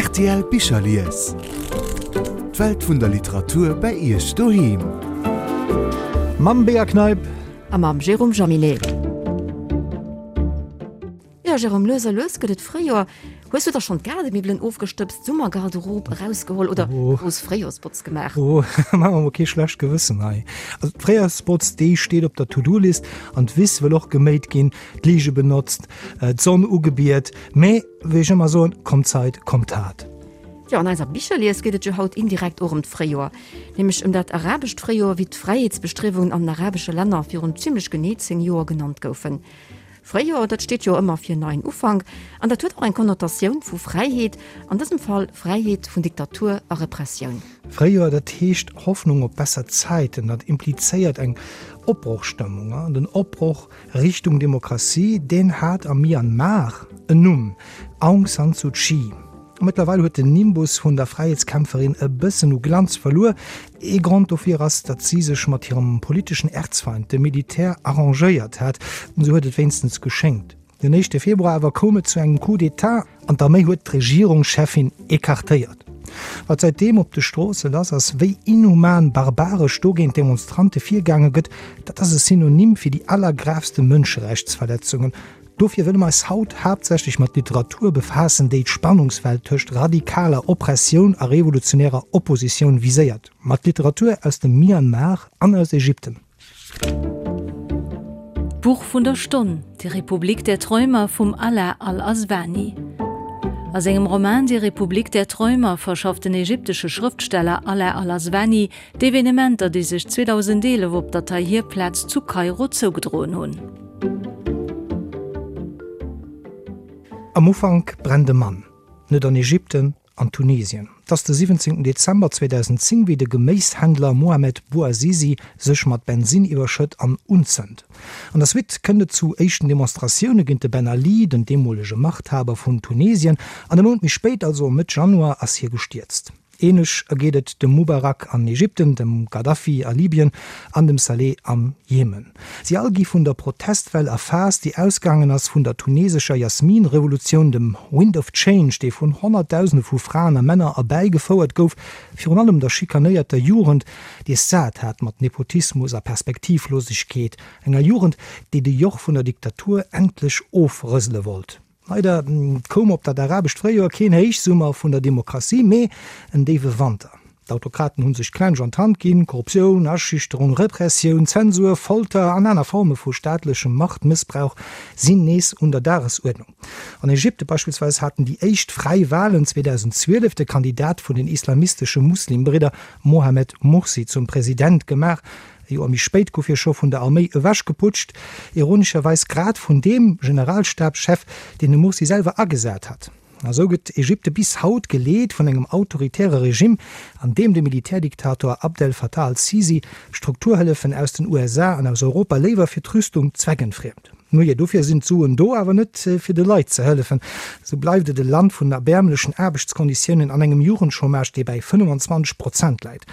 Rtl Bicherlies. D'Welt vun der Literatur bei Iech doheem. Mam Bea Kneip. A mam Jérôme Jaminet. Jo Jérôme, lues a lues gëtt et Fréijoer. Hues du da schonn d'Gaardemiwwelen ofgestëbst, d'Summergarderobe erausgeholl oder grouss Fréijoersbotz gemaach? Oh, maache mer mol kee schlecht Gewëssen hei. Also d'Fréijoersbotz, déi steet op der To-Do-List an d'Wiss wëll och geméit ginn, d'Lige benotzt, d'Sonn ugebiet. Mee wéi ech ëmmer soen, Komm Zait, komm Tat. Jo, an eiser Bicherlies geet et jo haut indirekt och ëm d'Fréijoer, nämlech ëm dat arabescht Fréijoer, wéi d'Fräiheetsbestriewungen an den arabesche Länner virun zimmlech genee 10 Joer genannt goufen. Fréijoer, dat steet jo ëmmer fir neien Ufank an dat huet och eng Konnotatioun vu Fräiheet, an dësem Fall Fräiheet vun Diktatur a Repressioun. Fréijoer, dat heescht Hoffnung op besser Zäiten, dat implizéiert eng Opbrochstëmmung. An den Opbroch Richtung Demokratie, deen hat am Myanmar en Numm, Aung San Suu Kyi. Mëttlerweil huet den Nimbus vun der Fräiheetskämpferin e bëssen u Glanz verluer. Ee Grond dofir ass, datt si sech mat hirem politeschen Erzfeind, dem Militär, arrangéiert hat. Esou huet et wéinstens geschéngt. Den éischte Februar awer koum et zu engem Coup d'Etat an d'Arméi huet d'Regierungscheffin ecartéiert. Wat säitdeem op de Stroosse lass ass, wéi inhuman, barbaresch do géint d'Demonstrante virgaange gëtt, dat ass e Synonym fir déi allergravste Mënscherechtsverletzungen. Dofir wëlle mer eis haut haaptsächlech mat Literatur befaassen, déi d'Spannungsfeld tëscht radikaler Oppressioun a revolutionärer Oppositioun viséiert, mat Literatur aus dem Myanmar an aus Ägypten. D'Buch vun der Stonn, Die Republik der Träumer vum Alaa Al-Aswany. A sengem Roman Die Republik der Träumer verschafft den ägyptesche Schrëftsteller Alaa Al-Aswany D'Evenementer, déi sech 2011 op der Tahrir-Plaz zu Kairo zougedroen hunn. Am Ufank brennt e Mann, net an Ägypten, an Tunesien. Et ass de 17 Dezember 2010, wéi de Geméishändler Mohamed Bouazizi sech mat Bensinn iwwerschëtt an unzënnt. An der Suite kënnt et zu éischten Demonstratioune géint de Ben Ali, den deemolege Machthaber vun Tunesien, an e Mount méi spéit, also Mëtt Januar, ass hie gestierzt. Ähnlech ergeet et dem Mubarak an Ägypten, dem Gaddafi a Libyen an dem Saleh am Jemen. Si all gi vun der Protestwell erfaasst, déi ausgaangen ass vun der tunesescher Jasmin-Revolutioun, dem Wind of Change, dee vun Honnertdausende vu Fraen a Männer erbäigefouert gouf, virun allem der schikanéierter Jugend, déi es sat hat mat Nepotismus a Perspektivlosegkeet, enger Jugend, déi de Joch vun der Diktatur endlech ofrësele wollt. Leider koum op dat arabescht Fréijoer keen Héichsummer vun der Demokratie, mee en déiwe Wanter. D'Autokraten hu sech d'Klensch an d'Hand ginn. Korruptioun, Aschüchterung, Repressioun, Zensur, Folter an aner Forme vu staatlechem Machtmëssbrauch sinn nees un der Dagesuerdnung. An Ägypte beispillsweis haten déi éischt fräi Walen 2012 de Kandidat vun den islamistesche Muslimbridder Mohamed Mursi zum President gemaach. E Joer méi spéit gouf hie scho vun der Arméi ewechgeputscht, ironescherweis grad vun deem Generalstabschef, deen de Mursi selwer agesat hat. A sou gëtt Ägypte bis haut geleet vun engem autoritäre Regimm, an deem de Militärdiktator Abdel Fattah al-Sisi Strukturhëllefen aus den USA an aus Europa léiwer fir d'Rüstung zweckentfriemt. Nujee, dofir sinn d'Suen do, awer net fir de Leit ze hëllefen. Sou bleift et e Land vun erbäermlechen Aarbechtskonditiounen an engem Jugendchômage, dee bäi 25 Prozent läit.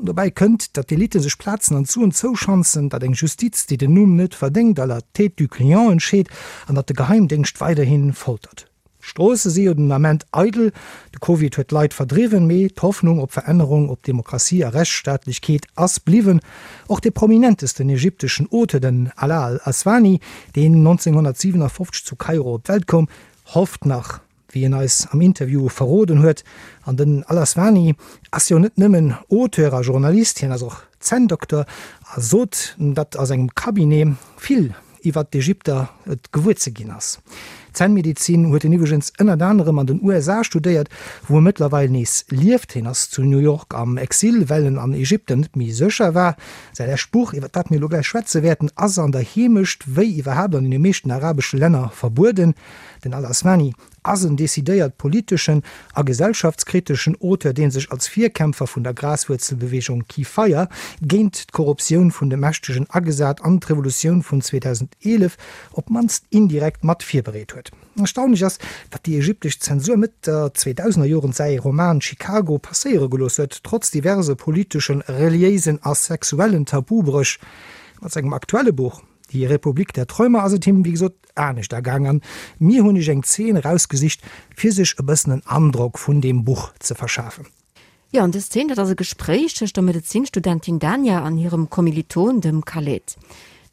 Dobäi kënnt, datt d'Elite sech Plazen an d'Suen zouschanzen, datt eng Justiz, déi den Numm net verdéngt, à la tête du client entscheet an datt de Geheimdéngscht weiderhi foltert. D'Stroosse si jo den Ament eidel, de Covid huet d'Leit verdriwwen, mee d'Hoffnung op Verännerung, op Demokratie a Rechtsstaatlechkeet ass bliwwen. Och de prominentesten ägypteschen Auteur, den Alaa al-Aswany, deen 1957 zu Kairo op d'Welt koum, hofft nach. Wéi en eis am Interview verroden huet. An den Al-Aswany ass jo net nëmmen Auteur a Journalist, hien ass och Zänndokter a sot, datt a sengem Cabinet vill iwwert d'Ägypter et gewuer ze ginn ass. Zännmedezin huet en iwwregens ënnert anerem an den USA studéiert, wou e mëttlerweil nees lieft. Hien ass zu New York am Exil, well en an Ägypten net méi sécher war. Säi lescht Buch, iwwer dat mir elo gläich schwätze wäerten, ass an der Heemecht, wéi iwwerhaapt an deene meeschten arabesche Länner, verbueden. Den Al-Aswany ass en decidéiert politeschen a gesellschaftskriteschen Auteur, dee sech als Virkämpfer vun der Graswuerzelbeweegung Kifaya géint d'Korruptioun vun de Mächtegen agesat an d'Revolutioun vun 2011 op d'mannst indirekt mat virbereet huet. Erstaunlech ass, datt déi ägyptesch Zensur Mëtt der Zweedausenerjoren säi Roman Chicago passéiere gelooss huet, trotz diverse politeschen, reliéisen a sexuellen Tabubréch. Mat sengem aktuelle Buch. Die Republik der Träumer ass et him, wéi gesot, anescht ergaang an mir hunn iech eng Zeen erausgesicht, fir sech e bëssen en Androck vun deem Buch ze verschafen. Jo, an dës Zeen, dat ass e Gespréich tëscht der Medezinstudentin Dania an hirem Kommiliton, dem Khaled.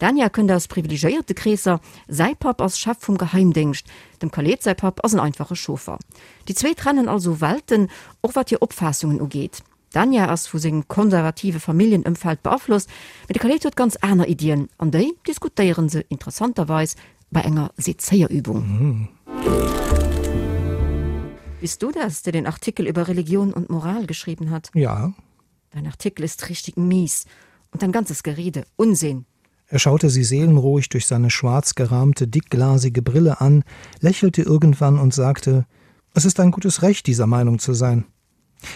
D'Dania kënnt aus privilegéierte Kreesser, säi Papp ass Chef vum Geheimdéngscht, dem Khaled säi Papp ass en einfache Chauffer. Déi zwee trennen also Welten, och wat hir Opfaassungen ugeet. D'Dania ass vu sengem konservative Familljenëmfeld beaflosst, mee de Khaled huet ganz aner Iddien, an déi diskutéiere se interessanterweis bei enger Sezéierübung. Bist du das, der den Artikel über Religion und Moral geschrieben hat? Ja. Dein Artikel ist richtig mies und dein ganzes Gerede Unsinn. Er schaute sie seelenruhig durch seine schwarz gerahmte, dickglasige Brille an, lächelte irgendwann und sagte: „Es ist ein gutes Recht, dieser Meinung zu sein.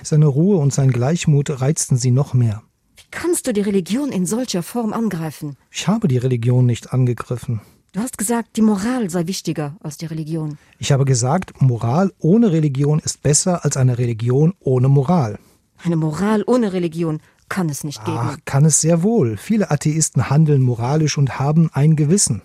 Seine Ruhe und sein Gleichmut reizten sie noch mehr. Wie kannst du die Religion in solcher Form angreifen? Ich habe die Religion nicht angegriffen. Du hast gesagt, die Moral sei wichtiger als die Religion. Ich habe gesagt, Moral ohne Religion ist besser als eine Religion ohne Moral. Eine Moral ohne Religion kann es nicht geben. Ach, kann es sehr wohl. Viele Atheisten handeln moralisch und haben ein Gewissen.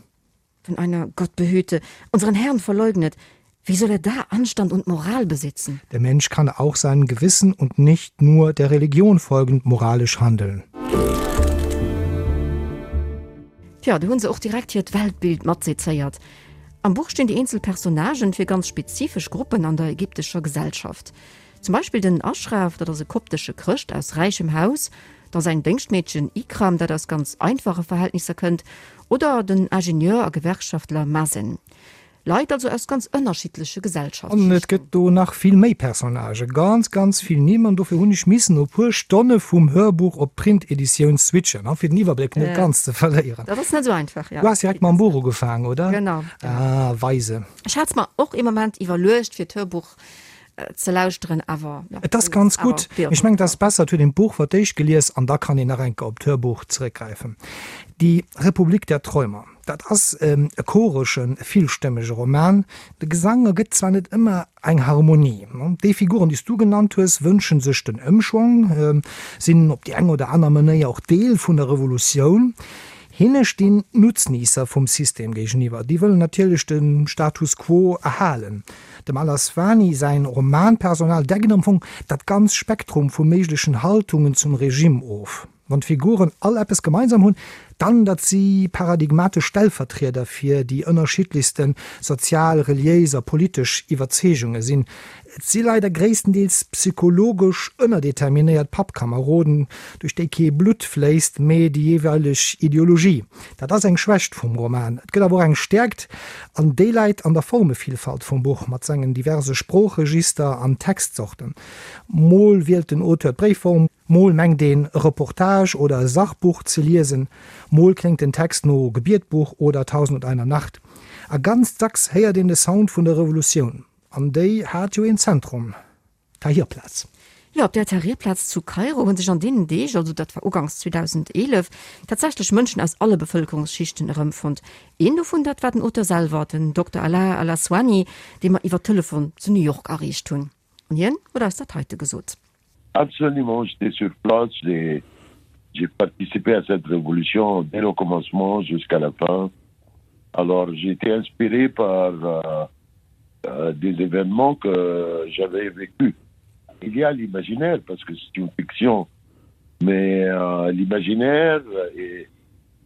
Wenn einer Gott behüte, unseren Herrn verleugnet, wie soll er da Anstand und Moral besitzen? Der Mensch kann auch seinem Gewissen und nicht nur der Religion folgend moralisch handeln. Tja, do hunn se och direkt hiert Weltbild matsezéiert. Am Buch stinn déi eenzel Personnagen fir ganz spezifesch Gruppen an der ägyptescher Gesellschaft. Zum Beispill den Ashraf, dat ass e koptesche Chrëscht aus räichem Haus, da säin Déngschtmeedchen Ikram, dat aus ganz einfache Verhältnisser kënnt, oder den Ingenieur a Gewerkschaftler Mazen. Leit also aus ganz ënnerschiddleche An et Gesellschaftsschichten. gëtt do nach vill méi Personnagen, ganz, ganz vill Nimm, an dofir hunn ech missen no puer Stonne vum Hörbuch op d'Print-Editioun switchen, fir den Iwwerbléck net ganz ze verléieren. Dat ass net esou einfach, jo. Du has direkt mam Buch ugefaangen, oder? Genau, genau. Ah, weise. Ech hat mer och ee Moment iwwerluecht, fir d'Hörbuch ze lauschteren, awer jo. Et ass ganz gutt. Mee ech mengen, et ass besser, et huet een d'Buch fir d'éischt gelies an da kann een nach eng Kéier op d'Hörbuch zeréckgräifen. Die Republik der Träumer, dat ass e choreschen, e villstëmmege Roman. De Gesang ergëtt zwar net ëmmer eng Harmonie. Déi Figuren, déi s du genannt hues, wënsche sech den Ëmschwong, sinn op déi eng oder aner Manéier och Deel vun der Revolutioun. Hinne stinn d'Nutzniisser vum System géigeniwwer. Déi wëllen natierlech de Status quo erhalen. Dem Al-Aswany säin Romanpersonal deckt am Fong dat ganz Spektrum vu méiglechen Haltungen zum Regime of. Wann d'Figuren all eppes gemeinsam hunn, dann datt si paradigmatesch Stellvertrieder fir déi ënnerschiddlechste sozial, reliéis a politesch Iwwerzeegunge sinn. Et si leider gréisstendeels psychologesch ënnerdeterminéiert Pappkameroden, duerch déi kee Blutt fléisst, mee déi jeeweileg Ideologie. Dat ass eng Schwächt vum Roman. Et gëtt awer och eng Stäerkt, an déi läit an der Formevillfalt vum Buch mat sengen diverse Sproochregister an Textzorten. Mol wielt den Auteur d'Bréifform, mol mengt een e Reportage oder e Sachbuch ze liesen, mol kléngt den Text no Gebietbuch oder Tausendundeiner Nacht. A ganz dacks héiert een de Sound vun der Revolutioun. An déi hat jo een Zentrum, d'Tahirplaz. Jo, op där Tahrirplaz zu Kairo hu sech an deenen Deeg, also dat war uganks 2011, tatsächlech Mënschen aus alle Bevëlkerungsschichten erëmfonnt. Een dovun, dat war den Auteur selwer, den Dokter Alaa Al-Aswany, dee mer iwwer Telefon zu New York erreecht hunn. An hien huet eis dat heite gesot. Absolument, j'étais sur place, j'ai j'ai participé à cette révolution dès le commencement jusqu'à la fin. Alors j'ai été inspiré par euh, euh, des événements que j'avais vécu. Il y a l'imaginaire parce que c'est une fiction, mais euh, l'imaginaire est,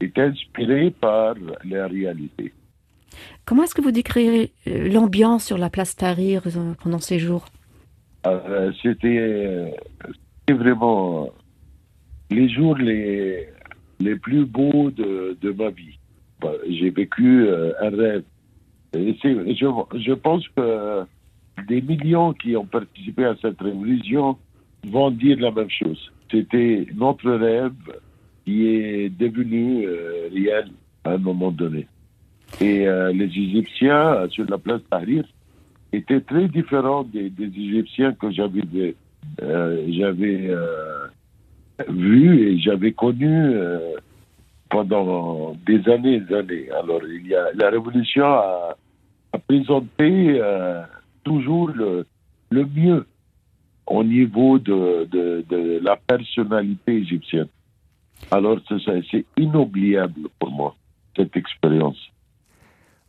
est inspiré par la réalité. Comment est-ce que vous décrirez euh, l'ambiance sur la place Tahrir euh, pendant ces jours euh, C'était vraiment les jours les, les plus beaux de, de ma vie. J'ai vécu un rêve. Et je, je pense que des millions qui ont participé à cette révolution vont dire la même chose. C'était notre rêve qui est devenu euh, réel à un moment donné. Et euh, les Égyptiens euh, sur la place Tahrir étaient très différents des, des Égyptiens que j'avais euh, j'avais euh, vu et j'avais connu euh, pendant des années et des années. Alors il y a, la révolution a, a présenté euh, toujours le, le mieux au niveau de, de, de la personnalité égyptienne. Alors c'est inoubliable pour moi. cette expérience.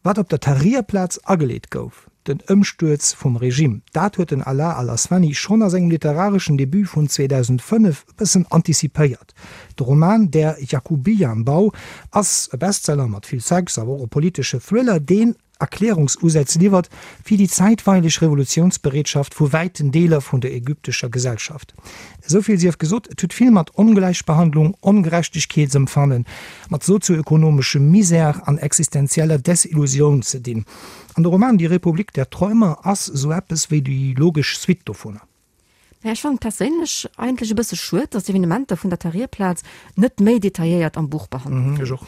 Wat op der Tahrir-Plaz ageleet gouf, den Ëmstuerz vum Regime, dat huet den Alaa al-Aswany schonn a sengem literareschen Debut vun 2005 e bëssen antizipéiert. De Roman Der Jakubianbau ass e Bestseller mat vill Sex, awer och e politesche Thriller, deen Erklärungsusätz liwwert fir déi zäitweileg Revolutiounsbereetschaft vu wäiten Deeler vun der ägyptescher Gesellschaft. Esou vill sief gesot, et huet vill mat Ongläichbehandlung, Ongerechtegkeetsempfannen, mat sozioökonomeschem Misère an existenzieller Desillusioun ze dinn. An de Roman Die Republik der Träumer ass esou eppes wéi déi logesch Suite dovunner. Mä ech fannen et perséinlech eigentlech e bësse schued, dass d'Evenementer vun der Tahrirplaz net méi detailléiert am Buch behandelt ginn. Ech och.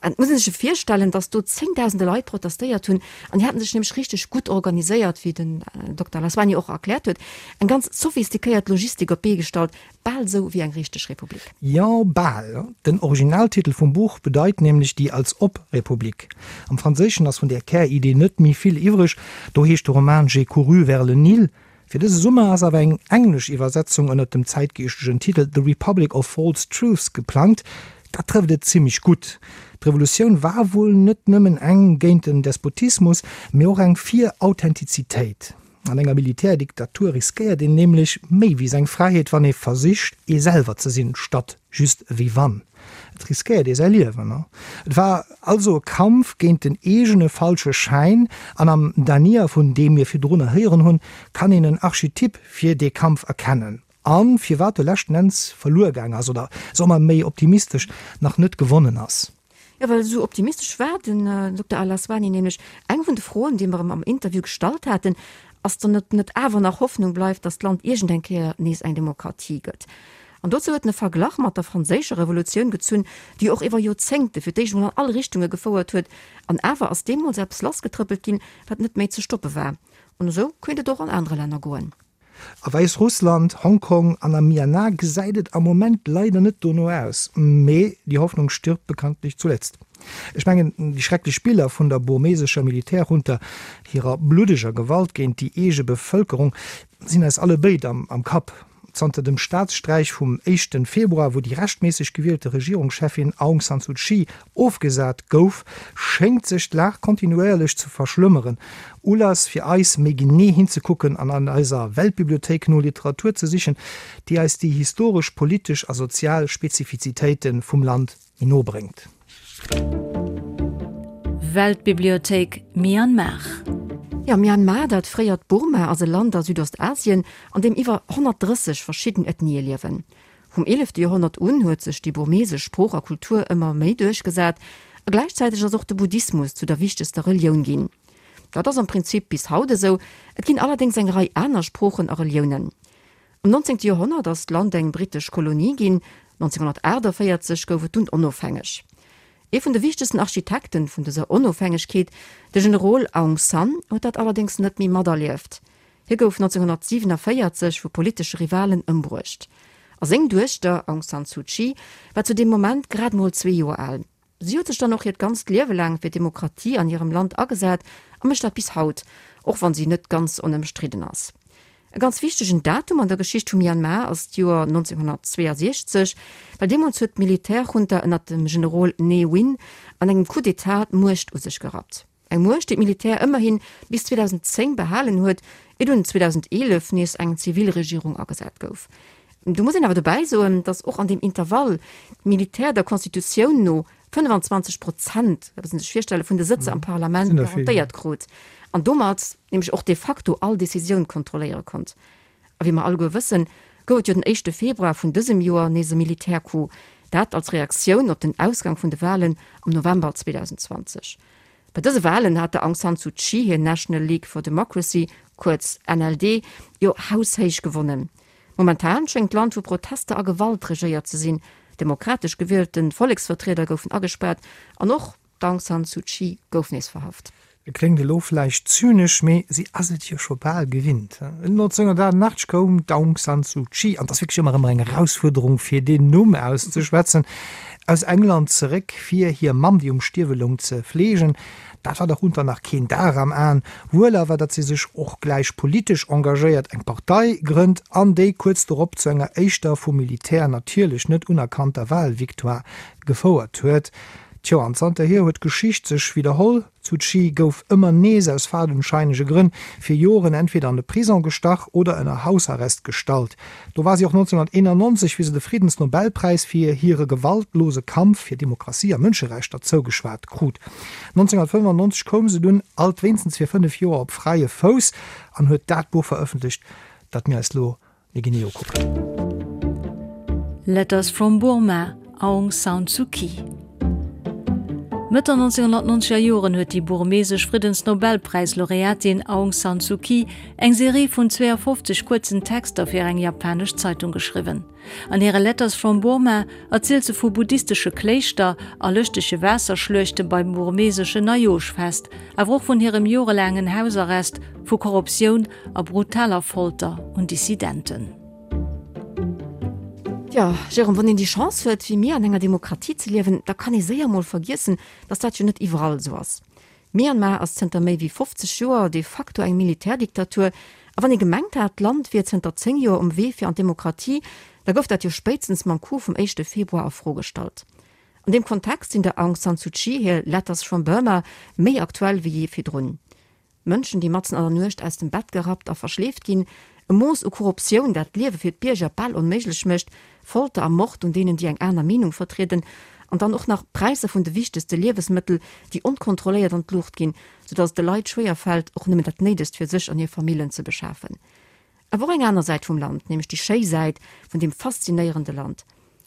Et muss ee sech jo virstellen, dass do zéngdausende Leit protestéiert hunn an déi haten sech nämlech richteg gutt organiséiert, wéi den Dokter Laswani och erkläert huet, eng ganz sophistiquéiert Logistik op d'Bee gestallt, bal esou wéi eng richteg Republik. Jo, bal. Den Originaltitel vum Buch bedeit nämlech Die Als-ob-Republik. Am Franséischen ass vun där Käridee net méi vill iwwreg, do heescht de Roman J'ai couru vers le Nil. Fir dëse Summer ass awer eng englesch Iwwersetzung ënnert dem zäitgeeschtegen Titel The Republic of False Truths geplangt. Dat trëfft et zimmlech gutt. D'Revolutioun war wuel net nëmmen eng géint den Despotismus, mee och eng fir Authentizitéit. An enger Militärdiktatur riskéiert een nämlech méi wéi seng Fräiheet, wann ee versicht ee selwer ze sinn, statt just ewéi wann. Et riskéiert ee säi Liewen. Et war also e Kampf géint den eegene falsche Schäin, an am Dania, vun deem mir virdrunner héieren hunn, kann een en Archetyp fir dee Kampf erkennen, a firwat e leschten Enns verluer gaang ass, oder soe mer méi optimistesch, nach net gewonnen ass. Jo, well esou optimistesch war den Dokter Al-Aswany nämlech. Eng vun de Froen, déi mer em am Interview gestallt haten, ass dann, ob net awer nach Hoffnung bleift, datt d'Land iergend eng Kéier nees eng Demokratie gëtt. An dozou huet en e Verglach mat der franséischer Revolutioun gezunn, déi och iwwer Joerzéngte fir d'éischt emol an all Richtunge gefouert huet. An awer ass deemools eppes lassgetrëppelt ginn, wat net méi ze stoppe war. An esou kéint et och an anere Länner goen. A Wäissrussland, Hongkong an am Myanmar gesäit et am Moment leider net dono aus. Mee die Hoffnung stirbt bekanntlich zuletzt. Ech mengen, déi schrecklech Biller vun der burmesescher Militärjunta, hirer bluddeger Gewalt géint déi eege Bevëlkerung, sinn eis allebéid am Kapp. Zanter dem Staatssträich vum éischten Februar, wou déi rechtméisseg gewielte Regierungscheffin Aung San Suu Kyi ofgesat gouf, schéngt sech d'Lag kontinuéierlech ze verschlëmmeren. Ulass fir eis, méi genee hinzekucken an an eiser Weltbibliothéik no Literatur ze sichen, déi eis déi historesch, politesch a sozial Spezifizitéite vum Land méi no bréngt. Weltbibliothéik Myanmar. Jo, Myanmar, dat fréiert Burma, ass e Land a Südostasien, an deem iwwer 130 verschidden Ethnië liewen. Vum eelefte Joerhonnert un huet sech déi burmesesch Sprooch a Kultur ëmmer méi duerchgesat a gläichzäiteg ass och de Buddhismus zu der wichtegster Relioun ginn. Dat ass am Prinzip bis haut esou, et ginn allerdéngs eng Rei aner Sproochen a Reliounen. Am 19. Joerhonnert ass d'Land eng brittesch Kolonie ginn, 1948 gouf et dunn onofhängeg. Ee vun de wichtegsten Architekten vun dëser Onofhängegkeet, de Generol Aung San, huet dat allerdéngs net méi materlieft. Hie gouf 1947 vu politesche Rivalen ëmbruecht. A seng Duechter Aung San Suu Kyi war zu deem Moment grad mol zwee Joer al. Si huet sech dann och hiert ganzt Liewe laang fir d'Demokratie an hirem Land agesat a mécht dat bis haut, och wann si net ganz onëmstridden ass. E ganz wichtegen Datum an der Geschicht vu Myanmar ass d'Joer 1962, well deemools huet d'Militärjunta ënnert dem Generol Ne Win an engem Coup d'État d'Muecht u sech gerappt. Eng Muecht, déi d'Militär ëmmerhi bis 2010 behalen huet, ier dunn 2011 nees eng Zivilregierung agesat gouf. Do muss een awer dobäi soen, datt och an deem Intervall d'Militär der Constitutioun no 25 Prozent, dat muss een sech virstellen, vun de Sëtzer am Parlament garantéiert krut an domat nämlech och de facto all Decisioun kontrolléiere konnt. A wéi mer alleguer wëssen, gouf et jo den éischte Februar vun dësem Joer nees e Militärcoup, dat als Reaktioun op den Ausgang vun de Walen am November 2020. Bei dëse Walen hat der Aung San Suu Kyi hir National League for Democracy, kuerz NLD, jo haushéich gewonnen. Momentan schéngt d'Land vu Protester a Gewalt regéiert ze sinn, demokratesch gewielte Volleksvertrieder goufen agespaart an och D'Aung San Suu Kyi gouf nees verhaft. Et kléngt elo vläicht zynesch, mee si ass et jo scho bal gewinnt. 1988 koum d'Aung San Suu Kyi, an et ass wierklech ëmmer erëm eng Erausfuerderung fir deen Numm auszeschwätzen, aus England zeréck fir hir Mamm, déi um Stierwe loung, ze fleegen. Dat war der Junta nach keen Dar am Aen. Wuel awer, datt si sech och gläich politesch engagéiert, eng Partei grënnt an déi kuerz dorop zu enger éischter, vum Militär natierlech net unerkannter Walvictoire gefouert huet. Tjo, an zanterhier huet d'Geschicht sech widderholl, D'Suu Kyi gouf ëmmer nees aus fadenscheinege Grënn fir Joren entweder an de Prison gestach oder ënner Hausarrest gestallt. Do war si och 1991, wéi se de Friddensnobelpräis fir hire gewaltlose Kampf fir Demokratie a Mënscherechter zougeschwat krut. 1995 koum se dunn, alt wéinstens fir 5 Joer, op fräie Fouss an huet dat Buch verëffentlecht, dat mir eis lo méi genee ukucken. Letters from Burma, Aung San Suu Kyi. Mëtt der 1990er Joren huet déi burmesesch Friddensnobelpräis-Laureatin Aung San Suu Kyi eng Serie vun 52 kuerzen Texter fir eng japanesch Zeitung geschriwwen. An hire Letters from Burma erzielt se vu buddhistesche Kléischter a lëschtege Waasserschluechte beim burmeseschen Neijoerschfest, awer och vun hirem jorelaangen Hausarrest, vu Korruptioun a brutaler Folter un Dissidenten. Jo, Jérôme, wann een déi Chance huet, wéi mir an enger Demokratie ze liewen, da kann ee séier mol vergiessen, datt dat jo net iwwerall esou ass. Myanmar ass zënter méi wéi 50 Joer de facto eng Militärdiktatur, a wann ee gemengt hat, d'Land wier zënter 10 Joer um Wee fir an d'Demokratie, da gouf dat jo spéitstens mam Coup vum éischte Februar a Fro gestallt. An deem Kontext sinn der Aung San Suu Kyi hir Letters from Burma méi aktuell wéi jee virdrun. Mënschen, déi matzen an der Nuecht aus dem Bett gerappt a verschleeft ginn, e Mooss u Korruptioun, dat d'Liewe fir d'Bierger bal onméiglech mécht, Folter a Mord un deenen, déi eng aner Meenung vertrieden, an dann och nach d'Präisser vun de wichtegste Liewesmëttel, déi onkontrolléiert an d'Luucht ginn, soudatt et de Leit schwéier fält, och nëmmen dat Néidegst fir sech an hir Famillen ze beschafen. Awer och eng aner Säit vum Land, nämlech déi schéi Säit vun deem faszinéierende Land.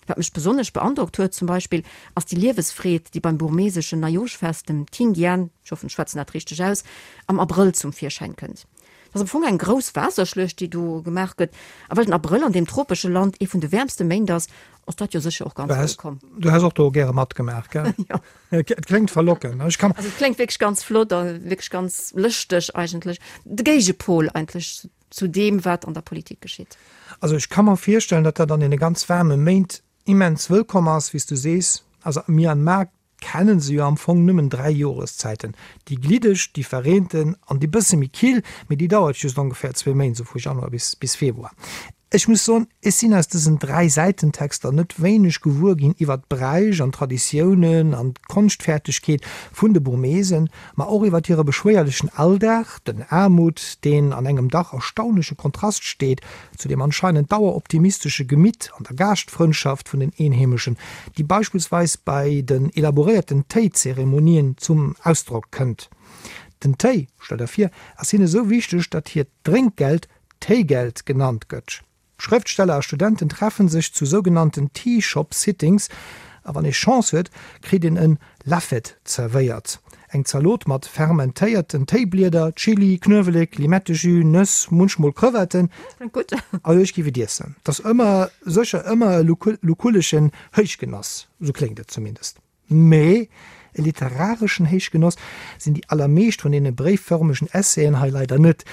Wat mech besonnesch beandrockt huet zum Beispill, ass déi Liewesfreed, déi beim burmeseschen Neijoschfest, dem Thingyan, ech hoffen, ech schwätzen dat richteg aus, am Abrëll zum Virschäin kënnt. Dat ass am Fong eng grouss Waasserschluecht, déi do gemaach gëtt. A well den Abrëll an deem tropesche Land ee vun de wäermste Méint ass, ass dat jo sécher och ganz wëllkomm. Du häss och do gäre matgemaach, gell? Jo. Et kléngt verlockend. Ech kann. Also et kléngt wierklech ganz flott a wierklech ganz lëschteg eigentlech. De Géigepol eigentlech zu deem, wat an der Politik geschitt. Also ech ka mer virstellen, datt dat an deene ganz waarme Méint immens wëllkomm ass, wéi s du sees. Also am Myanmar kenne se jo am Fong nëmmen 3 Joreszäiten, déi gliddeg, déi verreenten an déi bësse méi kill, mee déi dauert just ongeféier zwee Méint, esou vu Januar bis bis Februar. Ech muss soen, ech sinn aus dësen 3 Säitentexter net wéineg gewuer ginn iwwert d'Bräich an d'Traditiounen an d'Konschtfertegkeet vun de Burmesen, ma och iwwert hire beschwéierlechen Alldag, den Aarmut, deen an engem dach erstaunleche Kontrast steet zu dem anscheinend daueroptimistesche Gemitt an der Gaaschtfrëndschaft vun den Eenheemeschen, déi beispillsweis bei den elaboréierten Téizeremonien zum Ausdrock kënnt. Den Téi, stell der vir, ass hinne sou wichteg, datt hiert Drénkgeld Téigeld genannt gëtt. Schrëftsteller a Studenten treffen sech zu sougenannten Tea Shop Sittings a wann ee Chance huet, kritt een en Lafet zerwéiert, eng Zalot mat fermentéierten Téiblieder, Chili, Knuewelek, Limettejus, Nëss, munchmol Crevetten. Kléngt gutt. Also ech géif et iessen. Et ass ëmmer, sécher ëmmer e lukulleschen Héichgenoss, sou kléngt et zumindest. Mee e literareschen Héichgenoss sinn déi allermeescht vun deene bréiffërmegen Essaien hei leider net.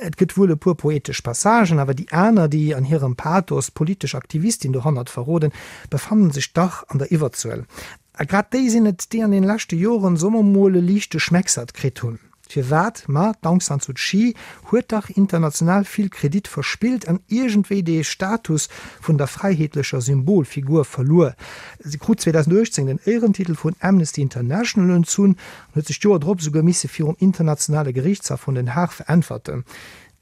Et gëtt wuel e puer poetesch Passagen, awer déi aner, déi an hirem Pathos d'politesch Aktivistin dohannert verroden, befannen sech dach an der Iwwerzuel. A grad déi sinn et, déi an den leschte Joren, soe mer mol, e liichte Schmecksert kritt hunn. Firwat? Ma d'Aung San Suu Kyi huet dach international vill Kredit verspillt an iergendwéi dee Status vun der fräiheetlecher Symbolfigur verluer. Si krut 2018 den Éierentitel vun Amnesty International entzunn an huet sech d'Joer drop esouguer misse virum internationale Geriichtshaff vun Den Haag veräntwerten.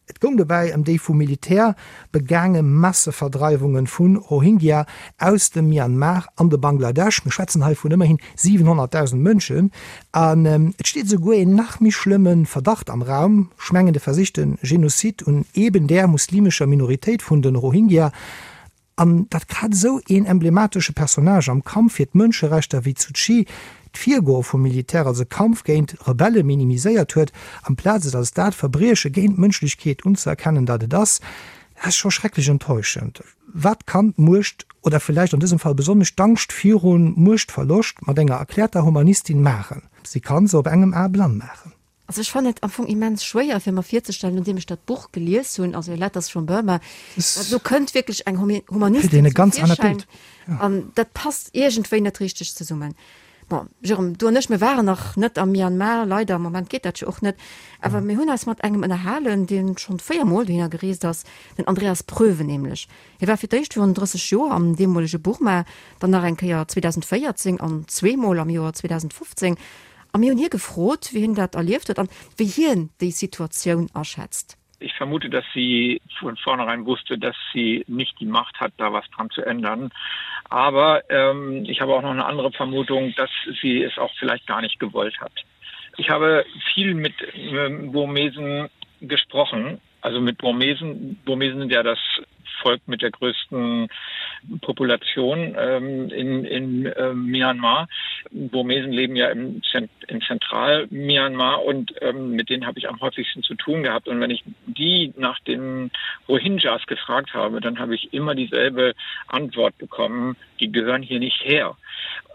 Et goung dobäi ëm déi vum Militär begaange Masseverdreiwunge vu Rohingya aus dem Myanmar an de Bangladesch. Mir schwätzen hei vun ëmmerhin 700.000 Mënschen. An et steet esouguer een nach méi schlëmme Verdacht am Raum, ech mengen de versichte Genozid un eben där muslimescher Minoritéit vun de Rohingya. An datt grad esou een emblematesche Personnage am Kampf fir d'Mënscherechter wéi d'Suu Kyi d'Virgoe vum Militär als e Kampf géint Rebelle minimiséiert huet, amplaz et als dat Verbrieche géint d'Mënschlechkeet unzëerkennen, dat et ass, dat ass scho schrecklech enttäuschend. Wat kann d'Muecht, oder villäicht an dësem Fall besonnesch d'Angscht viru Muechtverloscht, mat enger erkläerter Humanistin maachen? Si kann se op engem A blann maachen. Also ech fannen et am Fong immens schwéier fir mer virzestellen, nodeem ech dat Buch gelies hunn, also Letters from Burma, dat do kënnt wierklech eng Humanistin zum Virschäin an dat passt iergendwéi net richteg zesummen. Bon, Jérôme, du an ech, mir waren nach net am Myanmar, leider, am Moment geet dat jo och net, awer mir hunn eis mat engem ënnerhalen, dee schonn 4 Mol dohinner gereest ass, den Andreas Pröwe nämlech. Hie war fir d'éischt virun 30 Joer am deemolege Burma, dann nach eng Kéier 2014 an zweemol am Joer 2015. A mir hunn hie gefrot, wéi hien dat erlieft huet an wéi hien déi Situatioun aschätzt. Ich vermute, dass sie von vornherein wusste, dass sie nicht die Macht hat, da was dran zu ändern. Aber ähm, ich habe auch noch eine andere Vermutung, dass sie es auch vielleicht gar nicht gewollt hat. Ich habe viel mit ähm, Burmesen gesprochen, also mit Burmesen Burmesen sind ja das Volk mit der größten Population ähm, in, in äh, Myanmar. Burmesen leben ja im, Zent im Zentral-Myanmar und ähm, mit denen habe ich am häufigsten zu tun gehabt. Und wenn ich die nach den Rohingyas gefragt habe, dann habe ich immer dieselbe Antwort bekommen, die gehören hier nicht her.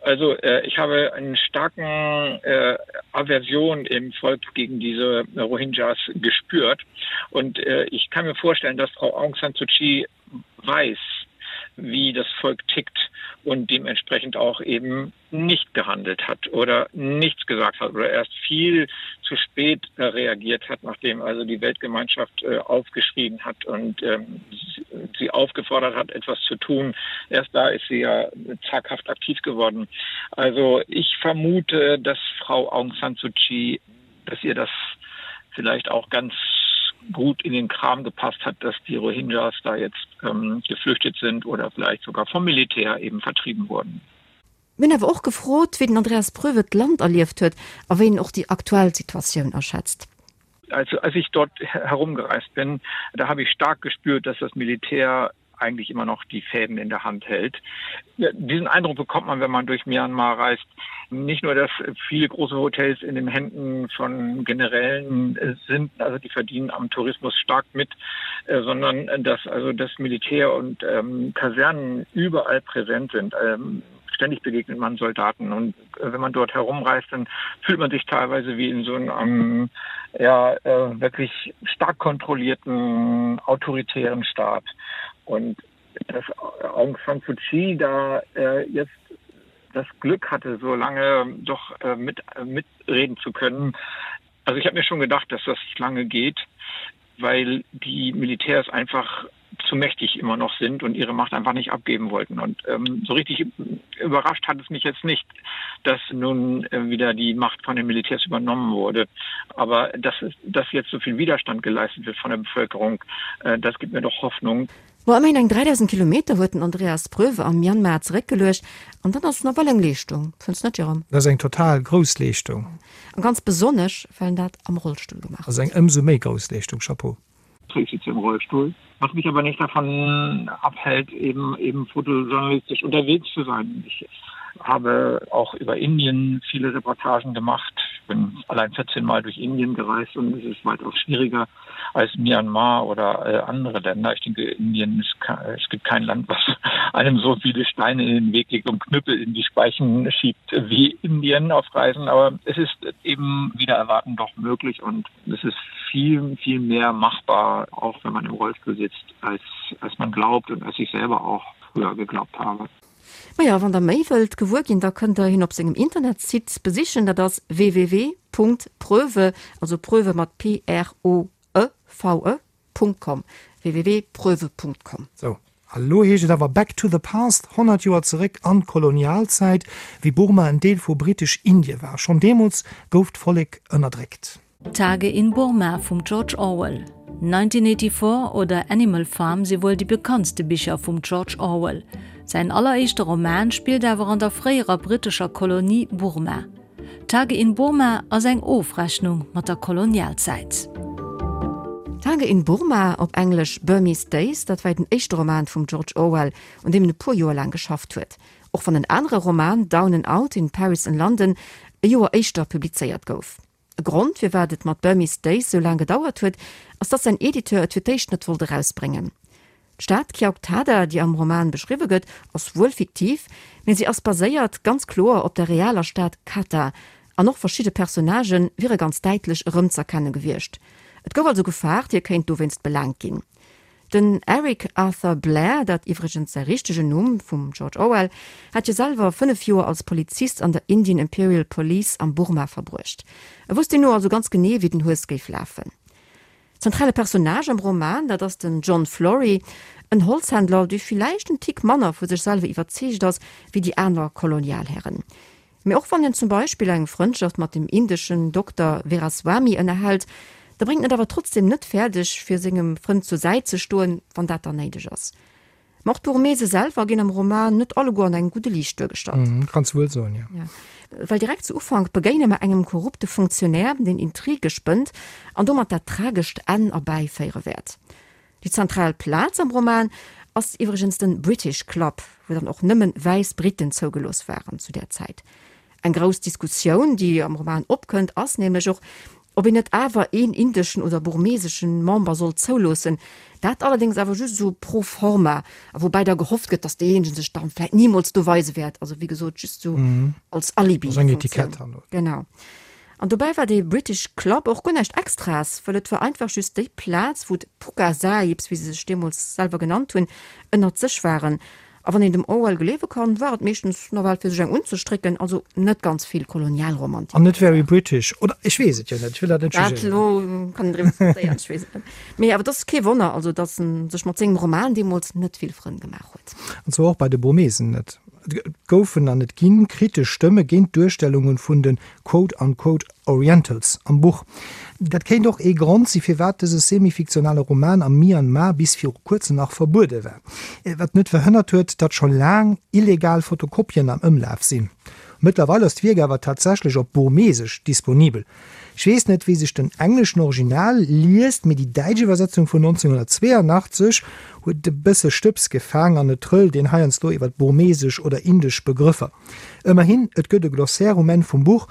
Also äh, ich habe einen starken äh, Aversion im Volk gegen diese Rohingyas gespürt. Und äh, ich kann mir vorstellen, dass Frau Aung San Suu Kyi weiß, wie das Volk tickt und dementsprechend auch eben nicht gehandelt hat oder nichts gesagt hat oder erst viel zu spät äh, reagiert hat, nachdem also die Weltgemeinschaft äh, aufgeschrieben hat und ähm, sie aufgefordert hat, etwas zu tun. Erst da ist sie ja zaghaft aktiv geworden. Also ich vermute, dass Frau Aung San Suu Kyi, dass ihr das vielleicht auch ganz gut in den Kram gepasst hat, dass die Rohingyas da jetzt ähm, geflüchtet sind oder vielleicht sogar vom Militär eben vertrieben wurden. Mir hunn awer och gefrot, wéi den Andreas Pröwe d'Land erlieft huet a wéi en och déi aktuell Situatioun aschätzt. Also als ich dort herumgereist bin, da habe ich stark gespürt, dass das Militär eigentlich immer noch die Fäden in der Hand hält. Diesen Eindruck bekommt man, wenn man durch Myanmar reist. Nicht nur, dass viele große Hotels in den Händen von Generälen äh, sind, also die verdienen am Tourismus stark mit, äh, sondern äh, dass also das Militär und ähm, Kasernen überall präsent sind. Ähm, ständig begegnet man Soldaten und äh, wenn man dort herumreist, dann fühlt man sich teilweise wie in so einem ja, äh, wirklich stark kontrollierten autoritären Staat. Und dass Aung San Suu Kyi da äh, jetzt das Glück hatte, so lange doch äh, mit, äh, mitreden zu können. Also ich habe mir schon gedacht, dass das lange geht, weil die Militärs einfach zu mächtig immer noch sind und ihre Macht einfach nicht abgeben wollten. Und ähm, so richtig überrascht hat es mich jetzt nicht, dass nun äh, wieder die Macht von den Militärs übernommen wurde. Aber dass, dass jetzt so viel Widerstand geleistet wird von der Bevölkerung, äh, das gibt mir doch Hoffnung. Ma ëmmerhin eng 3.000 Kilometer huet den Andreas Pröwe am Myanmar zeréckgeluecht, an dat ass nawell eng Leeschtung, fënns net Jérôme? Dat ass eng total grouss Leeschtung. A ganz besonnesch, well en dat am Rollstull gemaach huet. Ass eng ëmsou méi grouss Leeschtung, Chapeau. Ich sitze im Rollstuhl, was mich aber nicht davon abhält, eben eben fotojournalistisch unterwegs zu sein. Ich habe auch über Indien viele Reportagen gemacht. Ich bin allein 14 Mal durch Indien gereist und es ist weitaus schwieriger als Myanmar oder äh, andere Länder. Ich denke, Indien ist, es gibt kein Land, was einem so viele Steine in den Weg legt und Knüppel in die Speichen schiebt wie Indien auf Reisen. Aber es ist eben wieder erwarten doch möglich und es ist viel, viel mehr machbar, auch wenn man im Rollstuhl sitzt, als, als man glaubt und als ich selber auch früher geglaubt habe. Maja, wann der méi wëllt gewuer ginn, da kënnt der hien op sengem Internetsite besichen, dat ass www.pröve, also Pröve mat P-R-O-E-V-E, .com, www.pröve.com. Sou, a lo heescht et awer Back to the Past, 100 Joer zeréck an d'Kolonialzäit, wéi Burma en Deel vu Britesch-Indie war. Schonn deemools gouf d'Vollek ënnerdréckt. Tage in Burma vum George Orwell, 1984 oder Animal Farm si wuel déi bekanntste Bicher vum George Orwell. Säin alleréischte Roman spillt awer an der fréierer brittescher Kolonie Burma. Tage in Burma ass eng Ofrechnung mat der Kolonialzäit. Tage in Burma, op Englesch Burmese Days, dat war den éischte Roman vum George Orwell, un deem en e puer Joer laang geschafft huet. Och wann en anere Roman, Down and Out in Paris and London, e Joer éischter publizéiert gouf. E Grond, firwat et mat Burmese Days sou laang gedauert huet, ass dass säin Editeur et fir d'éischt net wollt erausbréngen. D'Stad Kyauktada, déi am Roman beschriwwe gëtt, ass wuel fiktiv, mee si ass baséiert ganz kloer op der realer Stad Katha, an och verschidde Personnagë wiere ganz däitlech erëmz'erkenne gewiescht. Et gouf also gefaart, hie kéint dowéinst belaangt ginn. Den Eric Arthur Blair, dat iwwregens säi richtegen Numm vum George Orwell, hat jo selwer 5 Joer als Polizist an der Indian Imperial Police am Burma verbruecht. E wosst deemno also ganz genee, wéi den Hues géif lafen. Zentrale Personnage am Roman, dat ass den John Flory, en Holzhändler, dee villäicht en Tick manner vu sech selwer iwwerzeegt ass, wéi déi aner Kolonialhären. Mee och wann en zum Beispill eng Frëndschaft mat dem indeschen Dokter Veraswamy ënnerhält, da bréngt en et awer trotzdem net fäerdeg, fir sengem Frënd zur Säit ze stoen, wann dat dann néideg ass. Ma och d'Burmese selwer ginn am Roman net alleguer an engem gudde Liicht duergestallt. Kanns wuel soen, jo. Jo, well direkt zu Ufank begéine mer engem korrupte Funktionär, deen Intrige spënnt an domat dat tragescht Enn erbäiféiere wäert. Déi zentral Plaz am Roman ass iwwregens den British Club, wou dann och nëmmen wäiss Briten zougelooss waren zu där Zäit. Eng grouss Diskussioun, déi am Roman opkënnt, ass nämlech och, ob een net awer een indeschen oder burmeseschen Member sollt zouloossen. Dat allerdéngs awer just esou pro forma, a woubäi da gehofft gëtt, datt deejéinegen sech dann vläit nimools do weise wäert. Also wéi gesot, just esou als Alibi-Funktioun. Genau. An dobäi war dee British Club och guer näischt Extraes, wëll et war einfach just déi Plaz, wou d'Pukka Sahibs, wéi se sech deemools selwer genannt hunn, ënnert sech waren. A wann een dem Orwell gleewe kann, war et meeschtens nawell fir sech eng unzestrécken, also net ganz vill Kolonialromantik. An net very British, oder? Ech weess et jo net, ech wëll dat net jugéieren. Dat elo kann een driwwer diskutéieren, ech weess et net. Mee awer et ass kee Wonner also, datt en sech mat sengem Roman deemools net vill Frënn gemaach huet. An zwar och bei de Burmesen net. Et goufen an et ginn kritesch Stëmme géint d'Duerstellunge vun de quote unquote Orientals am Buch. Dat kéint och ee Grond si firwat dëse semi-fiktionale Roman am Myanmar bis viru kuerzem nach verbuede war. Wat net verhënnert huet, datt scho laang illegal Fotokopien am Ëmlaf sinn. Mëttlerweil ass d'Wierk awer tatsächlech op Burmesesch disponibel. Ech weess net, wéi sech den engleschen Original liest, mee déi däitsch Iwwersetzung vun 1982 huet e bësse Stëbs gefaang an et trëllt een heiansdo iwwer burmesesch oder indesch Begrëffer. Ëmmerhin, et gëtt e Glossaire um Enn vum Buch,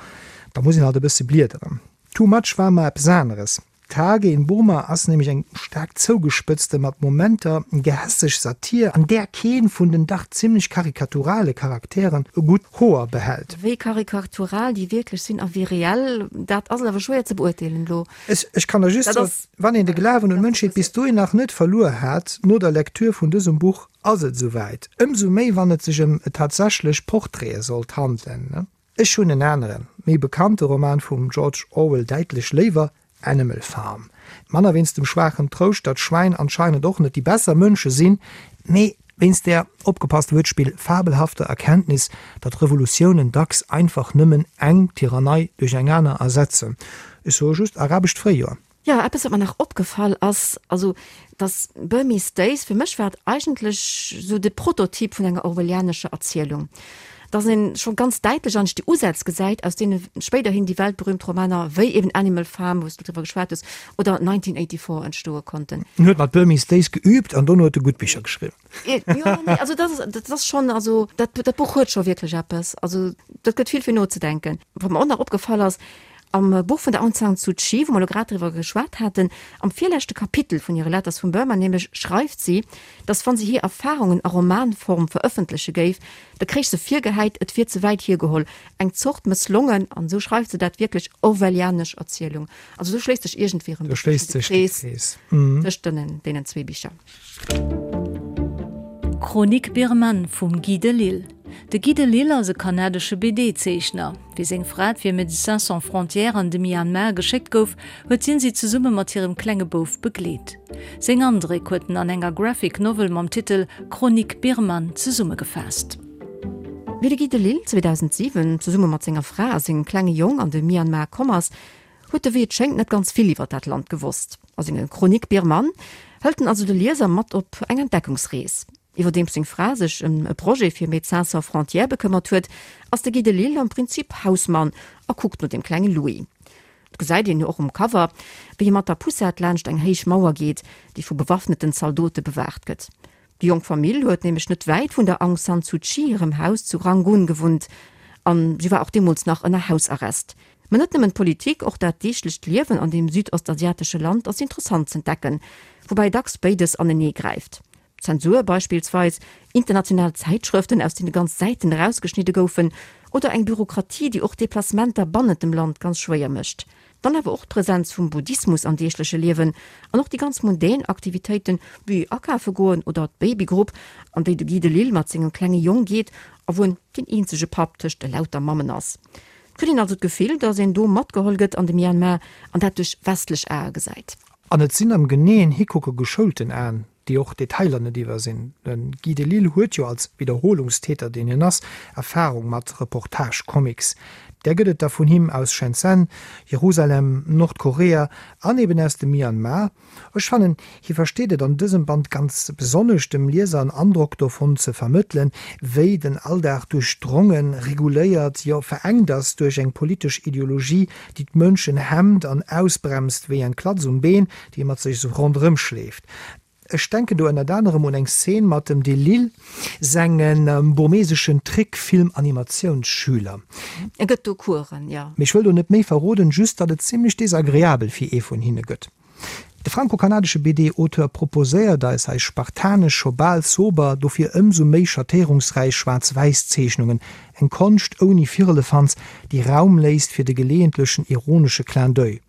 da muss een halt e bësse bliederen. Too much war mer eppes aneres. Tage in Burma ass nämlech eng staark zougespëtzte, mat Momenter gehässeg Satir, an där kee vun den dach zimmlech karikaturale Charakteren e gutt Hoer behält. Wéi karikatural déi wierklech sinn a wéi reell, dat ass awer schwéier ze beurteelen elo. Ech kann der just soen, wann een de Glawen un d'Mënschheet bis dohin nach net verluer hat, no der Lektür vun dësem Buch ass et esouwäit. Ëmsou méi wann et sech ëm tatsächlech Portraite sollt handelen. Ech hunn en aneren, méi bekannte Roman vum George Orwell däitlech léiwer, Animal Farm. Manner wéinst dem schwaachen Trouscht, datt Schwäin anscheinend och net déi besser Mënsche sinn, mee wéinst där, opgepasst Wuertspill, fabelhafter Erkenntnis, datt Revolutiounen dacks einfach nëmmen eng Tyrannei duerch eng aner ersetzen. Ech soe just, Arabescht Fréijoer. Jo, eppes wat mer nach opgefall ass, also dass Burmese Days, fir mech war et eigentlech sou de Prototyp vun enger orwellianescher Erzielung, dass een scho ganz däitlech eigentlech déi Usätz gesäit, aus deene spéiderhin déi weltberühmt Romaner wéi eben Animal Farm, wou s du driwwer geschwat hues, oder 1984 entstoe konnten. En huet mat Burmese Days geübt an dono huet e gutt Bicher geschriwwen. Jo, nee, also dat ass, dat ass schonn, also dat, dat Buch huet scho wierklech eppes, also dat gëtt vill fir nozedenken. Wat mer och nach opgefall ass, Am Buch vun der Aung San Suu Kyi, wou mer elo grad driwwer geschwat haten, am virleschte Kapitel vun hire Letters from Burma nämlech, schreift si, datt wann si hir Erfarungen a Romanform verëffentleche géif, da kréich se virgehäit, et wier ze wäit hiergeholl, eng Zort mësslongen, an esou schreift se dat wierklech, orwellianesch Erzielung. Also do schléisst sech iergendwéi erëm e bësschen de Krees tëscht deenen zwee Bicher. Chronique birmane vum Guy Delisle. De Guy Delisle ass e kanadesche BD-Zeechner. Wéi seng Fra fir Médecins Sans Frontières an de Myanmar geschéckt gouf, huet hien si zesumme mat hirem klenge Bouf begleet. Seng Andréck huet en an enger Graphic Novel mam Titel Chronique birmane zesummegefaasst. Wéi de Guy Delisle 2007 zesumme mat senger Fra a sengem klenge Jong an de Myanmar komm ass, huet e wéi et schéngt net ganz vill iwwer dat Land gewosst. A senge Chronique birmane hëlt en also de Lieser mat op eng Entdeckungsrees. Iwwerdeems seng Fra sech ëm e Projet fir Médecins sans frontières bekëmmert huet, ass de Guy Delisle am Prinzip Hausmann a kuckt no dem klenge Louis. Et gesäit een jo och um Cover, wéi hie mat der Poussette laanscht eng héich Mauer geet, déi vu bewaffneten Zaldote bewaacht gëtt. Déi jonk Famill huet nämlech net wäit vun der Aung San Suu Kyi hirem Haus zu Rangoon gewunnt an si war och deemools nach ënner Hausarrest. Mä net nëmmen d'Politik, och dat deeglecht Liewen an deem südostasiatesche Land ass interessant z'entdecken, woubäi dacks béides anenee gräift. Zensur beispillsweis, international Zäitschrëften, aus deene ganz Säiten erausgeschnidde goufen, oder eng Bürokratie, déi och Deplacementer bannent dem Land ganz schwéier mécht. Dann awer och d'Präsenz vum Buddhismus am deegleche Liewen an och déi ganz mundän Aktivitéiten, wéi akafe goen oder d'Babygrupp, an déi de Guy Delisle mat sengem klenge Jong geet a wou en deen eenzege Papp tëscht elauter Mammen ass. Et kritt een also d'Gefill, datt een do matgeholl gëtt an de Myanmar an dat duerch westlech Ae gesäit. An et sinn am geneeën Hikucke geschoulten Aen, déi och Detailer net iwwersinn. De Guy Delisle huet jo als Wiederholungstäter, deen hien ass, Erfarung mat Reportage-Comics. Där gëtt et der vun him aus Shenzhen, Jerusalem, Nordkorea an eben aus dem Myanmar. Ech fannen, hie versteet et an dësem Band ganz besonnesch, dem Lieser en Androck dovun ze vermëttelen, wéi den Alldag duerchdrongen, reguléiert, jo verengt ass duerch eng politesch Ideologie, déi d'Mënschen hemmt an ausbremst wéi eng Klatz um Been, déi ee mat sech esou ronderëm schleeft. Ech denken do ënnert anerem un eng Szene mat dem Delil senge burmeseschen Trickfilm-Animatiounsschüler. E gëtt do Coursen, jo. Mee ech wëll do net méi verroden, just datt et zimlech desagreabel fir ee vun hinne gëtt. De franco-kanadesche BD-Auteur proposéiert eis hei spartanesch, scho bal sober, dofir ëmsou méi schattéierungsräich Schwaarz-Wäiss-Zeechnungen, eng Konscht ouni Firlefanz, déi Raum léisst fir de geleeëntlechen ironesche Clin d'oeil.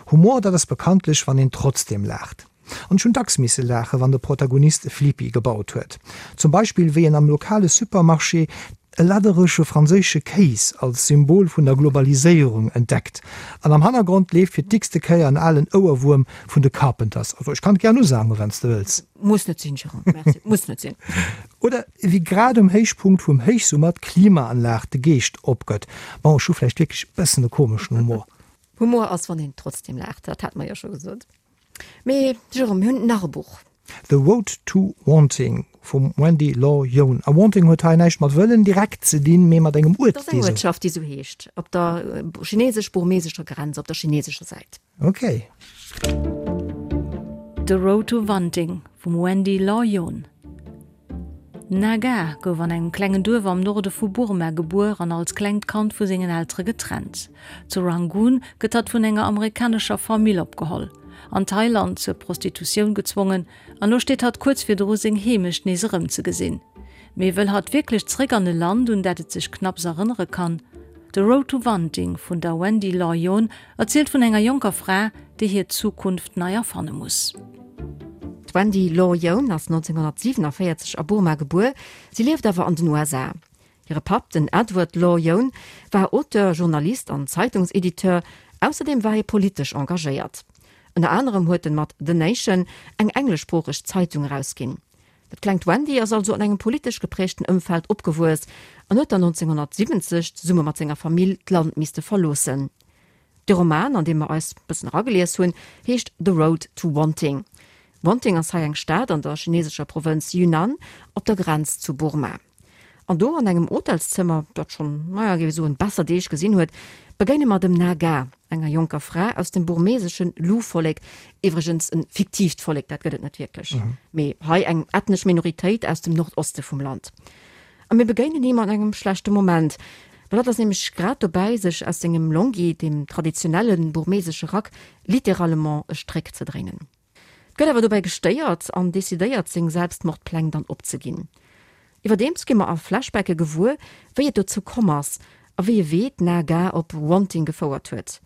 Humor, dat ass bekanntlech, wann een trotzdem laacht. An ech hunn dacks misse laachen, wann de Protagonist e Flipi gebaut huet. Zum Beispill wéi en am lokale Supermarché e ladderege franséische Kéis als Symbol vun der Globaliséierung entdeckt. An am Hannergrond leeft fir d'x-te Kéier en alen Ouerwuerm vun de Carpenters. Also ech kann et gären usangen, wann s de wëlls. Muss net sinn, Jérôme, merci, muss net sinn. Oder wéi grad um Héichpunkt vum Héichsummer d'Klimaanlag de Geescht opgëtt. Bon, ech hu vläicht wierklech e bëssen e komeschen Humor. Humor ass, wann een trotzdem laacht, dat hate mer jo scho gesot. Mee Jérôme, mir hunn nach e Buch. The Road to Wanting vum Wendy Law Yohn. A Wanting huet hei näischt mat wëllen direkt ze dinn, mee mat engem Uert, dee sou. Dat ass eng Uertschaft, déi sou heescht, op der chinesesch-burmesescher Grenz, op der chinesescher Säit. Ok. The Road to Wanting vum Wendy Law Yohn. D'Naga gouf an engem klengen Duerf am Norde vu Burma gebuer an als klengt Kand vu sengen Eltere getrennt. Zu Rangoon gëtt hatt vun enger amerikanescher Famill opgeholl, an Thailand zur Prostitutioun gezwongen an lo steet hatt kuerz virdru seng Heemecht nees erëmzegesinn. Mee wëll hatt wierklech zeréck an e Land, un dat et sech knapps erënnere kann? The Road to Wanting vun der Wendy Law Yohn erzielt vun enger jonker Fra, déi hir Zukunft nei erfanne muss. D'Wendy Law Yohn ass 1947 a Burma gebuer, si lieft awer an den USA. Hire Papp, den Edward Law Yohn, war Auteur, Journalist an Zeitungsediteur, ausserdeem war hie politesch engagéiert. Ënner anerem huet en mat The Nation eng engleschsproocheg Zeitung erausginn. Dat klengt Wendy ass also an engem politesch geprägten Ëmfeld opgewuess an huet dann 1970 zesumme mat senger Famill d'Land misste verloossen. De Roman, an dee mer eis bëssen eragelies hunn, heescht The Road to Wanting. Wanting ass hei eng Stad an der chinesescher Provënz Yunnan, op der Grenz zu Burma. An do, an engem Hotelszëmmer, dat schonn, naja, géif ech soen, besser Deeg gesinn huet, begéine mer dem Naga, enger jonker Fra aus dem burmesesche Lu-Vollek, iwwregens e fiktiivt Vollek, dat gëtt et net wierklech, mee hei eng ethnesch Minoritéit aus dem Nordoste vum Land. A mir begéinen him an engem schlechte Moment, well hatt ass nämlech grad dobäi, sech aus sengem Longyi, deem traditionelle burmesesche Rack, littéralement e Stréck ze dréinen. Gëtt awer dobäi gestéiert an decidéiert, seng Selbstmordpläng dann opzeginn. Iwwerdeems gi mer a Flashbacke gewuer, wéi et dozou komm ass a wéi e Wee d'Naga op Wanting gefouert huet.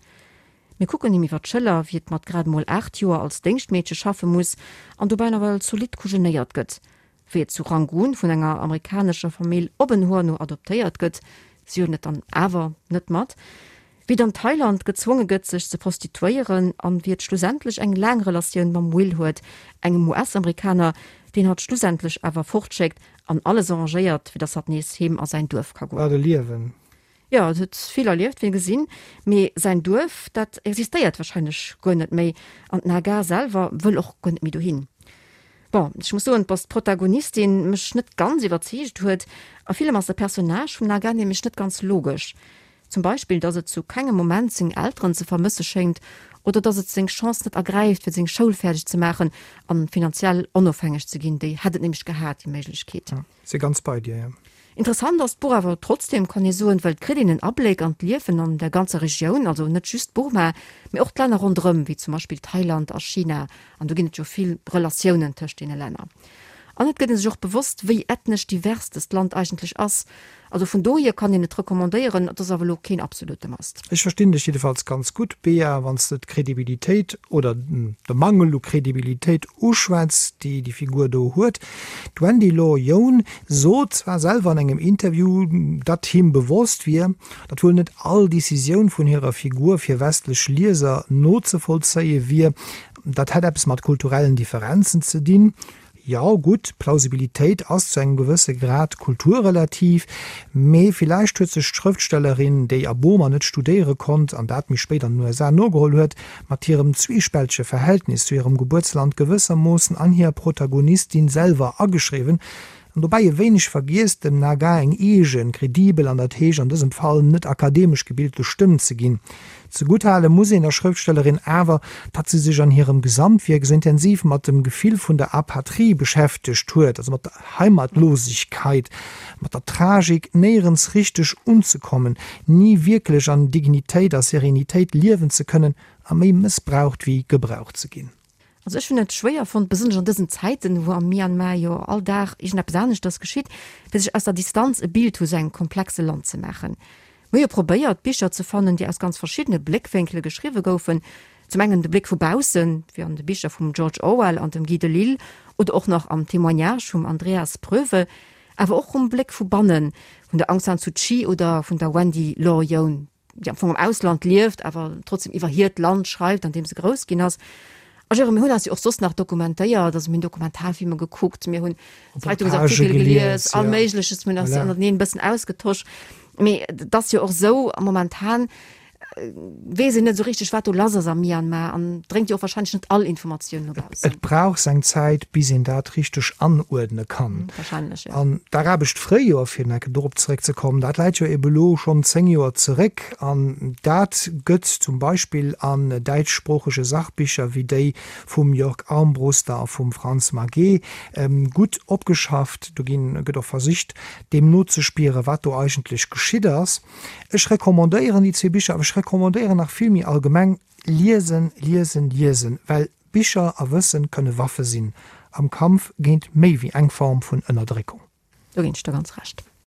Mir kucken him iwwer d'Schëller, wéi et mat grad emol 8 Joer als Déngschtmeedche schaffe muss an dobäi nawell zolidd kujenéiert gëtt. Wéi et zu Rangoon vun enger amerikanescher Famill op en Hoer no adoptéiert gëtt, si huelen et dann awer net mat, wéi et an Thailand gezwonge gëtt sech ze prostituéieren an wéi et schlussendlech eng laang Relatioun mam Will huet, engem US-Amerikaner, deen hatt schlussendlech awer fortschéckt an alles arrangéiert, fir dass hatt nees heem a säin Duerf ka goen. Wat e Liewen! Jo, et huet vill erlieft, wéi gesinn, mee säin Duerf, dat existéiert wahrscheinlech guer net méi an d'Naga selwer wëll och guer net méi dohin. Bon, ech muss soen, dass d'Protagonistin mech net ganz iwwerzeegt huet. A villem ass de Personnage vum Naga nämlech net ganz logesch. Zum Beispill, dass et zu kengem Moment seng Elteren ze vermësse schéngt oder dass et seng Chance net ergräift, fir seng Schoul fäerdeg ze maachen an finanziell onofhängeg ze ginn. Déi hätt et nämlech gehat, déi Méiglechkeet. Si ganz bei dir, jo. Interessant ass d'Buch awer trotzdem, kann ee soen, well et kritt een en Abléck an d'Liewen an der ganzer Regioun, also net just Burma, mee och d'Länner ronderëm, wéi zum Beispill Thailand a China, an do ginn et jo vill Relatiounen tëscht deene Länner. An et gëtt ee sech och bewosst, wéi ethnesch divers dëst Land eigentlech ass. Also vun dohier kann een et recommandéieren, et ass awer elo keen absolute Must. Ech verstinn dech jiddefalls ganz gutt, Bea, wann s de d'Credibilitéit oder de Mangel u Credibilitéit uschwätz, déi déi Figur do huet. D'Wendy Law Yoon sot zwar selwer an engem Interview, datt him bewosst wier, datt wuel net all Decisioun vun hirer Figur fir westlech Lieser nozevollzéie wier. Dat hätt eppes mat kulturellen Differenzen ze dinn. Jo, gutt, Plausibilitéit ass zu engem gewësse Grad kulturrelativ, mee villäicht huet sech d'Schrëftstellerin, déi a Burma net studéiere konnt an dat méi spéit an den USA nogeholl huet, mat hirem zwiespältege Verhältnis zu hirem Gebuertsland gewëssermoossen an hir Protagonistin selwer ageschriwwen an dobäi e wéineg vergiess, dem Naga eng eegen, kredibel an dat heescht an dësem Fall net akademesch gebilte Stëmm ze ginn. Zegutt hale muss een der Schrëftstellerin awer, datt si sech an hirem Gesamtwierk esou intensiv mat dem Gefill vun der Apatrie beschäftegt huet, also mat der Heimatlosigkeit, mat der Tragik, néierens richteg unzekommen, ni wierklech an Dignitéit a Serenitéit liewen ze kënnen a méi mëssbraucht wéi gebraucht ze ginn. Also ech hunn et schwéier fonnt, besonnesch an dësen Zäiten, wou am Myanmar jo all Dag iergendeppes aneschters geschitt, fir sech aus der Distanz e Bild vu sou engem komplexe Land ze maachen. Mir hu jo probéiert, Bicher ze fannen, déi aus ganz verschiddene Bléckwénkele geschriwwe goufen. Zum engen de Bléck vu baussen, wéi an de Bicher vum George Orwell an dem Guy Delisle oder och nach am Témoignage vum Andreas Pröwe, awer och um Bléck vu bannen, vun der Aung San Suu Kyi oder vun der Wendy Law Yoon. déi am Fong am Ausland lieft, awer trotzdem iwwer hiert Land schreift, an deem se grouss ginn ass. A Jérôme, mir hunn eis jo och soss nach dokumentéiert, also mir hunn Dokumentarfilmer gekuckt, mir hunn Zeitungsartikel gelies, all Méigleches, mir hunn eis ënnerteneen e bëssen ausgetosch. Mee et ass jo och esou, momentan weess een net esou richteg, wat do lass ass am Myanmar an dréngt jo och wahrscheinlech net all Informatioun no baussen. Et brauch seng Zäit, bis een dat richteg anuerdne kann. Wahrscheinlech, jo. An d'arabescht Fréijoer, fir nach eng Kéier dorop zeréckzekommen, dat läit jo ebe lo schonn 10 Joer zeréck. An dat gëtt zum Beispill an däitschsproochege Sachbicher wéi déi vum Jörg Armbruster a vum Franz Maget gutt opgeschafft. Do ginn, gëtt och versicht, deem nozespieren, wat do eigentlech geschitt ass. Ech recommandéieren déi zwee Bicher, awer ech recommandéieren nach vill méi allgemeng, Liesen, liesen, liesen, well Bicher a Wëssen kënne Waffe sinn am Kampf géint méi wéi eng Form vun Ënnerdréckung. Do ginn ech der ganz Recht.